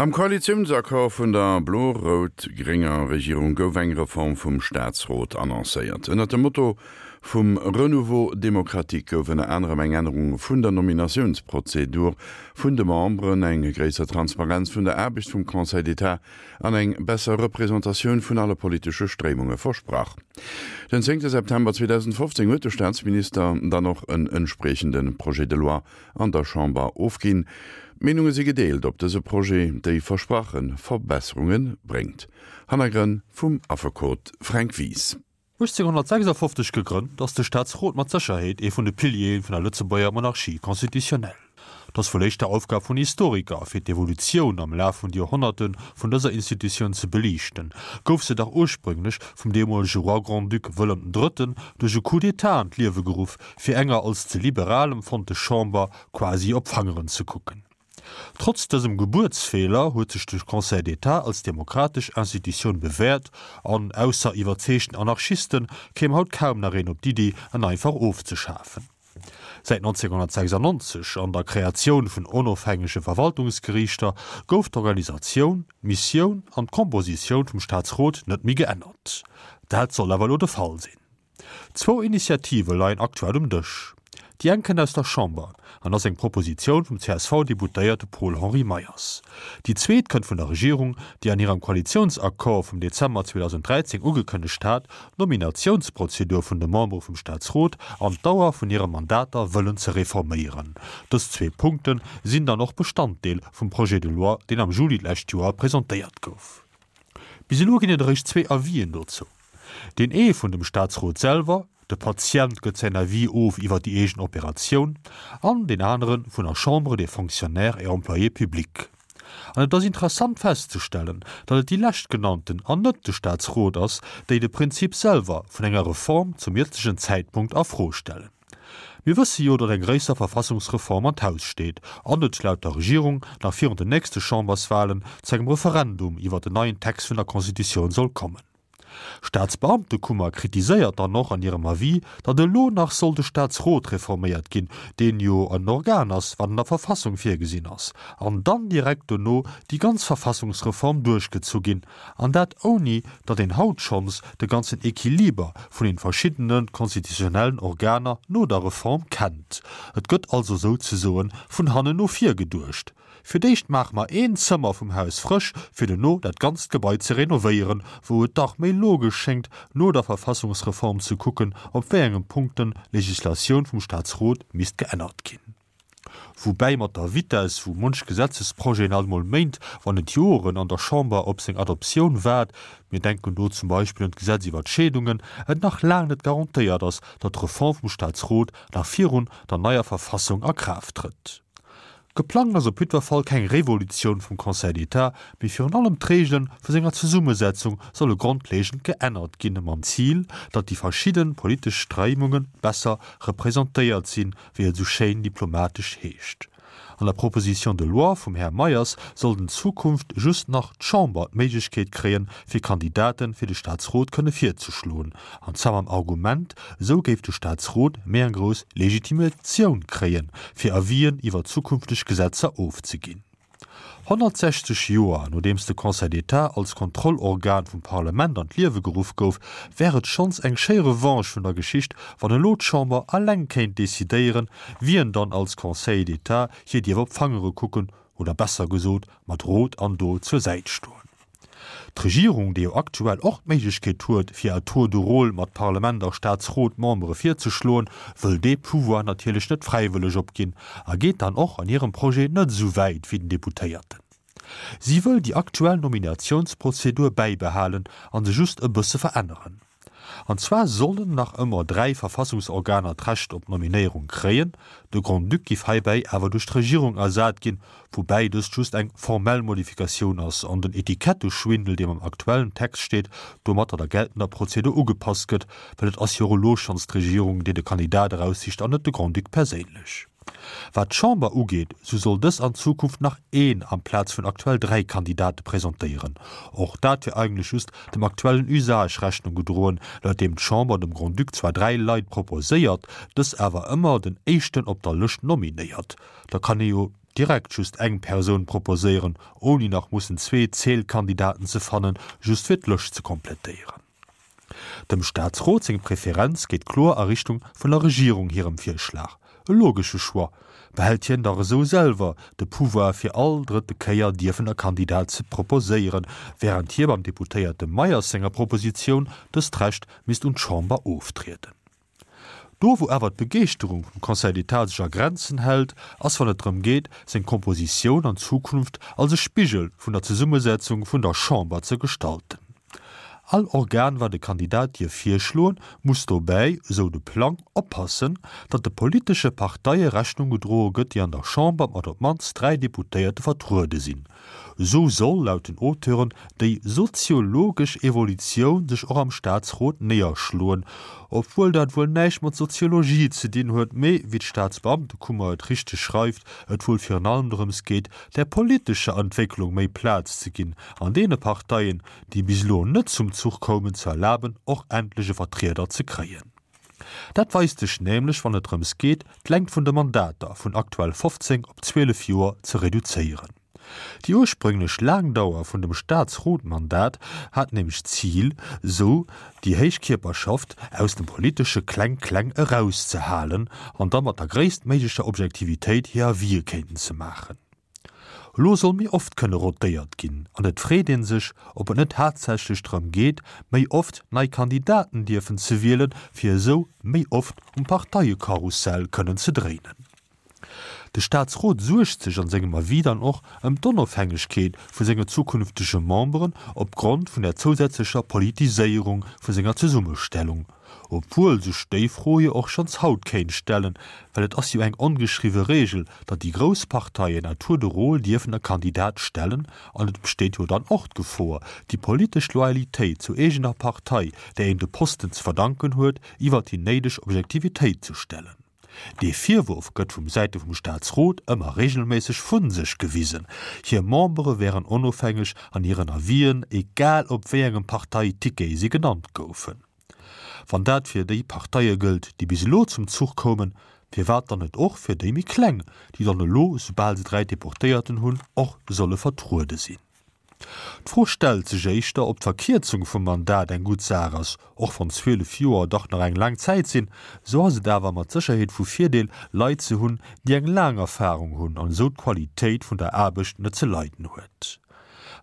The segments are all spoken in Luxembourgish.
Am Koalitiounsaccord vun der blo-rout-grénger Regierung gouf eng Reform vum Staatsrot annoncéiert. Ënnert dem Motto vum Renouveau démocratique gouf ënner anerem eng Ännerung vun der Nominatiounsprozedur vun de Memberen, eng gréisser Transparenz vun der Aarbecht vum Conseil d'État an eng besser Representatioun vun alle politesche Stréimunge versprach. Den zéngte September 2015 huet de Staatsminister dann och en entspriechende Projet de loi an der Chamber ofginn. D'Meenunge si gedeelt, ob dëse Projet déi versprache Verbesserunge bréngt. Hannergrënn vum Affekot Fränk Wies. 1856 gegrënnt, ass de Staatsrot mat Sécherheet ee vun de Piliere vun der Lëtzebuerger Monarchie constitutionnelle. Et ass wuel éischter Aufgab vun Historiker, fir d'Evolutioun am Laf vun de Joerhonnerte vun dëser Institutioun ze beliichten. Gouf se dach ursprünglech vum deemolege Roi Grand-Duc Wëllem den Drëtten duerch e Coup d'État an d'Liewe geruff, fir enger als ze liberal empfonnte Chamber quasi op d'Fangeren ze kucken. Trotz dësem Gebuertsfeeler huet sech de Conseil d'État als demokratesch Institutioun bewäert an, ausser iwwerzeegten Anarchisten, kéim haut kaum nach een op d'Iddi, en einfach ofzeschafen. Säit 1996, an der Kreatioun vun onofhängege Verwaltungsgeriichter, gouf d'Organisatioun, d'Missioun an d'Kompositioun vum Staatsrot net méi geännert. Dat soll awer elo de Fall sinn. Zwou Initiative leien aktuell um Dësch. Déi eng kënnt aus der Chamber an ass eng Propositioun vum CSV-Deputéierte Paul-Henri Meyers. Déi zweet kënnt vun der Regierung, déi an hirem Koalitiounsaccord vum Dezember 2013 ugekënnegt hat, d'Nominatiounsprozedur vun de Membere vum Staatsrot an d'Dauer vun hire Mandater wëllen ze reforméieren. Dës zwee Punkte sinn dann och Bestanddeel vum Projet de loi, deen am Juli d'lescht Joer presentéiert gouf. Bis elo ginn et eréischt zwee Avisen dozou. Deen ee vun dem Staatsrot selwer, de Patient gëtt säin Avis of iwwer déi eegen Operatioun, an deen anere vun der Chambre des Fonctionnaires et Employés publics. An et ass interessant festzestellen, datt et déi leschtgenannten an net de Staatsrot ass, déi de Prinzip selwer vun enger Reform zum jëtzegen Zäitpunkt a Fro stellen. Mir wësse jo, datt eng gréisser Verfassungsreform an d'Haus steet an et laut der Regierung nach virun den nächste Chamberswahlen zu engem Referendum iwwer den neien Text vun der Constitutioun soll kommen. D'Staatsbeamtekummer kritiséiert dann och an hirem Avis, datt elo nach soll de Staatsrot reforméiert ginn, deen jo en Organ ass, wat an der Verfassung virgesinn ass, an dann direkt dono déi ganz Verfassungsreform duerchgezu ginn, an dat ouni datt een haut schonns de ganzen Equiliber vun den verschiddene constitutionnellen Organer no der Reform kennt. Et gëtt also souzesoen vun hannen no vir geduecht. Fir d'éischt maache mer een Zëmmer vum Haus frësch, fir dono dat ganzt Gebai ze renovéieren, wou et dach méi logesch schéngt, no der Verfassungsreform ze kucken, op wéi engem Punkten d'Legislatioun vum Staatsrot misst geännert ginn. Woubäi mat der Vitess, wou munch Gesetzesprojeten alt mol Méint, wann net Joren an der Chamber op seng Adoptioun waart, mir denken do zum Beispill un d'Gesetz iwwer d'Scheedungen, et nach laang net garantéiert ass, datt d'Reform vum Staatsrot nach virun der neier Verfassung a Kraaft trëtt. Geplangt ass op jiddwer Fall keng Revolutioun vum Conseil d'État, mee virun allem d'Reegele vu senger Zesummesetzung solle grondlegend geännert ginn, mam Zil, datt déi verschidde politesch Stréimunge besser representéiert sinn, wéi et esou schéin diplomatesch heescht. An der Proposition de loi vum Här Meyers sollt en Zukunft just nach d'Chamber d'Méiglechkeet kréien, fir Kandidate fir de Staatsrot kënne virzeschloen, an zwar mam Argument, esou géif de Staatsrot méi eng grouss Legitimatioun kréien, fir Avisen iwwer zukünfteg Gesetzer ofzeginn. 160 Joer nodeems de Conseil d'État als Kontrollorgan vum Parlement an d'Liewe geruff gouf, wär et schonns eng schéi Revanche vun der Geschicht, wann elo d'Chamber alleng kéint decidéieren, wien dann als Conseiller d'État hir dierf op d'Fangere kucken oder besser gesot mat Rot an Dot zur Säit stoen. D'Regierung, déi jo aktuell och d'Méiglechkeet huet, fir à tour de rôle mat Parlement a Staatsrot Membere virzeschloen, wëll dee Pouvoir natierlech net fräiwëlleg opginn a geet dann och an hirem Projet net esou wäit wéi den Deputéierten. Si wëll déi aktuell Nominatiounsprozedur bäibehalen a se just e bësse veränneren. An zwar sollen nach ëmmer 3 Verfassungsorganer d'Recht op d'Nominéierung kréien, de Grand-Duc giff heibäi awer duerch d'Regierung ersat ginn, woubäi dëst just eng formell Modifikatioun ass an den Etiketteschwindel, deem am aktuellen Text steet, domatter der geltender Prozedur ugepasst gëtt, well et ass jo och elo schonns d'Regierung, déi de Kandidat eraussicht an net de Grand-Duc perséinlech. Wat d'Chamber ugeet, sou soll dës an Zukunft nach een amplaz vun aktuell 3 Kandidate presentéieren. Och dat wier eigentlech just dem aktuellen Usage Rechnung gedroen, laut deem d'Chamber dem Grand-Duc zwar 3 Leit proposéiert, dës awer ëmmer den éischten op der Lëscht nominéiert. Da kann ee jo. direkt just eng Persoun proposéieren, ouni nach mussen zwee Zählkandidaten ze fannen, just fir d'Lëscht ze komplettéieren. Dem Staatsrot seng Preferenz geet kloer a Richtung vun der Regierung hirem Virschlag. E logesche Choix, behält hien dach esou selwer de Pouvoir fir all drëtte Kéier dierfen e Kandidat ze proposéieren, wärend hie beim Deputéierte Meyers senger Propositioun dëst Recht misst un d'Chamber oftrieden. Do wou awer d'Begeeschterung vum Conseil d'État sech a Grenzen hält, ass wann et drëm geet, seng Kompositioun an Zukunft als e Spigel vun der Zesummesetzung vun der Chamber ze gestalten. All Organ wat e Kandidat dierf virschloen, muss dobäi, esou de Plang, oppassen, datt de politesche Parteie Rechnung gedroe gëtt, déi an der Chamber mat op d'mannst 3 Deputéierte vertruede sinn. Esou soll, laut den Auteuren, déi soziologesch Evolutioun sech och am Staatsrot néierschloen, obwuel dat wuel näischt mat Soziologie ze dinn huet, mee, wéi d'Staatsbeamtekummer et richteg schreift, et wuel virun allem drëms geet, der politescher Entwécklung méi Plaz ze ginn an deene Parteien, déi bis elo net zum Zuch koumen, ze erlaben, och endlech e Vertrieder ze kréien. Dat weist sech nämlech, wann et drëms geet, d'Längt vun de Mandater vun aktuell 15 op 12 Joer ze reduzéieren. Déi ursprünglech laang Dauer vun dem Staatsrotmandat hat nämlech d'Zil, sou déi héich Kierperschaft aus dem politesche Kleng-Kleng erauszehalen an da mat der gréisstméiglecher Objektivitéit hir Avisë kéinten ze maachen. Elo soll méi oft kënne rotéiert ginn an et freet ee sech, ob et net haaptsächlech drëm geet, méi oft nei Kandidaten dierfen ze wielen, fir esou méi oft um Parteie-Karussell kënnen ze dréinen. De Staatsrot suergt sech an sengem Avis dann och ëm d'Onofhängegkeet vu senge zukünftege Memberen opgrond vun der zousätzlecher Politiséierung vu senger Zesummestellung. Obwuel sech déi Fro jo och schonns haut kéint stellen, well et ass jo eng ongeschriwwe Regel, datt déi grouss Parteien à tour de rôle dierfen e Kandidat stellen, an et besteet jo dann och d'Gefor, déi politesch Loyalitéit zur eegener Partei, där een de Posten ze verdanken huet, iwwer déi néideg Objektivitéit ze stellen. Dee Virwurf gëtt vum Säite vum Staatsrot ëmmer regelméisseg vu sech gewisen, hir Membere wären onofhängeg an hiren Avisen, egal op wéi engem Parteiticket si genannt goufen. Wann dat fir déi Parteie gëllt, déi bis elo zum Zuch koumen, firwat dann net och fir déi méi kleng, déi dann elo, soubal se 3 Deportéierten hunn, och solle vertruede sinn? D'Fro stellt sech éischter, ob d'Verkierzung vum Mandat eng gutt Saach ass. Och wann 12 Joer dach nach eng laang Zäit sinn, esou ass et awer mat Sécherheet vu Virdeel, Leit ze hunn, déi eng laang Erfarung hunn an esou d'Qualitéit vun der Aarbecht net ze leiden huet.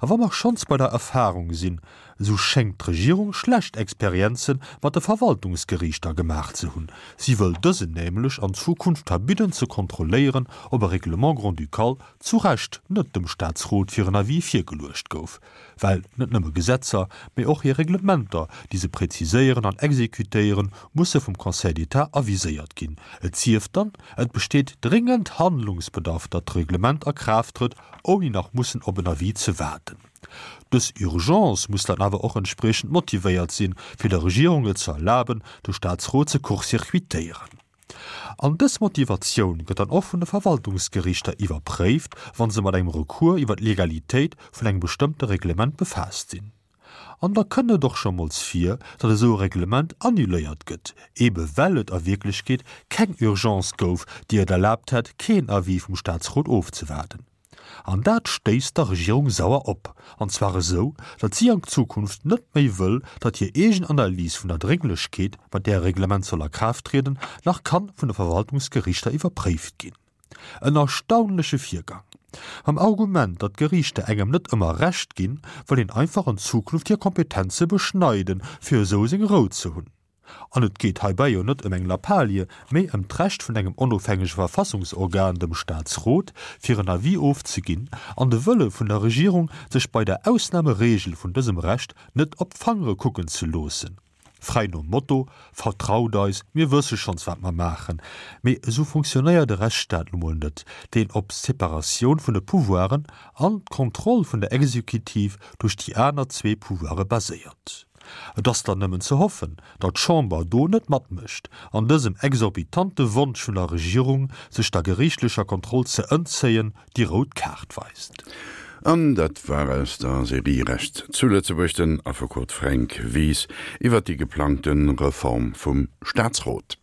A wa mer schonns bei der Erfarung sinn, esou schéngt d'Regierung schlecht Experienze mat de Verwaltungsgeriichter gemaach ze hunn. Si wëll dësen nämlech an Zukunft verbidden ze kontrolléieren, ob e Règlement grand-ducal zu Recht net dem Staatsrot fir en Avis virgeluecht gouf, well net nëmme Gesetzer, mee och hir Reglementer, déi se präziséieren an exekutéieren, musse vum Conseil d'État aviséiert ginn, et sief dann, et besteet dringend Handlungsbedarf, datt d'Reglement a Kraaft trëtt, ouni nach mussen op en Avis ze waarden. Dës Urgence muss dann awer och entspriechend motivéiert sinn, fir der Regierung et ze erlaben, de Staatsrot ze court-circuitéieren. An dës Motivatioun gëtt dann och vun de Verwaltungsgerichter iwwerpréift, wa se mat engem Recours iwwer d'Legalitéit vun engem bestëmmte Reglement befaasst sinn. An da kënn et och scho mols vir, datt esou e Reglement annuléiert gëtt, eebe well et a Wierklechkeet keng Urgence gouf, déi et erlaabt hätt, keen Avis vum Statsrot ofzewaarden. An dat stéisst der Regierung sauer op, an zwar esou, datt si an Zukunft net méi wëll, datt hir eegen Analys vun der Drénglechkeet, mat där e Reglement soll a Kraaft trieden, nach kann vun de Verwaltungsgerichter iwwerpréift ginn. En erstaunleche Virgang. Mam Argument, datt d'Geriichter engem net ëmmer Recht ginn, wëll een einfach an Zukunft hir Kompetenze beschneiden, fir esou seng Rou ze hunn. An et geet heibäi jo net ëm eng Lappalie, mee ëm d'Recht vun engem onofhängege Verfassungsorgan, dem Staatsrot, fir en Avis ofzeginn, an de Wëlle vun der Regierung, sech bei der Ausnahmeregel vun dësem Recht net op d'Fangere kucken ze loossen. Fräi nom Motto, Vertraut eis, mir wësse schonns wat mer maachen. Mee esou funktionéiert e Rechtsstaat nu mol net, deen op d'Separatioun vun de Pouvoiren an d'Kontroll vun der Exekutiv duerch déi aner zwee Pouvoire baséiert. Et ass dann nëmmen ze hoffen, datt d'Chamber do net matmécht an dësem exorbitante Wonsch vun der Regierung, sech der geriichtlecher Kontroll ze ëntzéien, déi rout Kaart weist. An dat war aus der Serie Recht zu Lëtzebuerg den Affekot Fränk Wies iwwert déi geplangte Reform vum Staatsrot.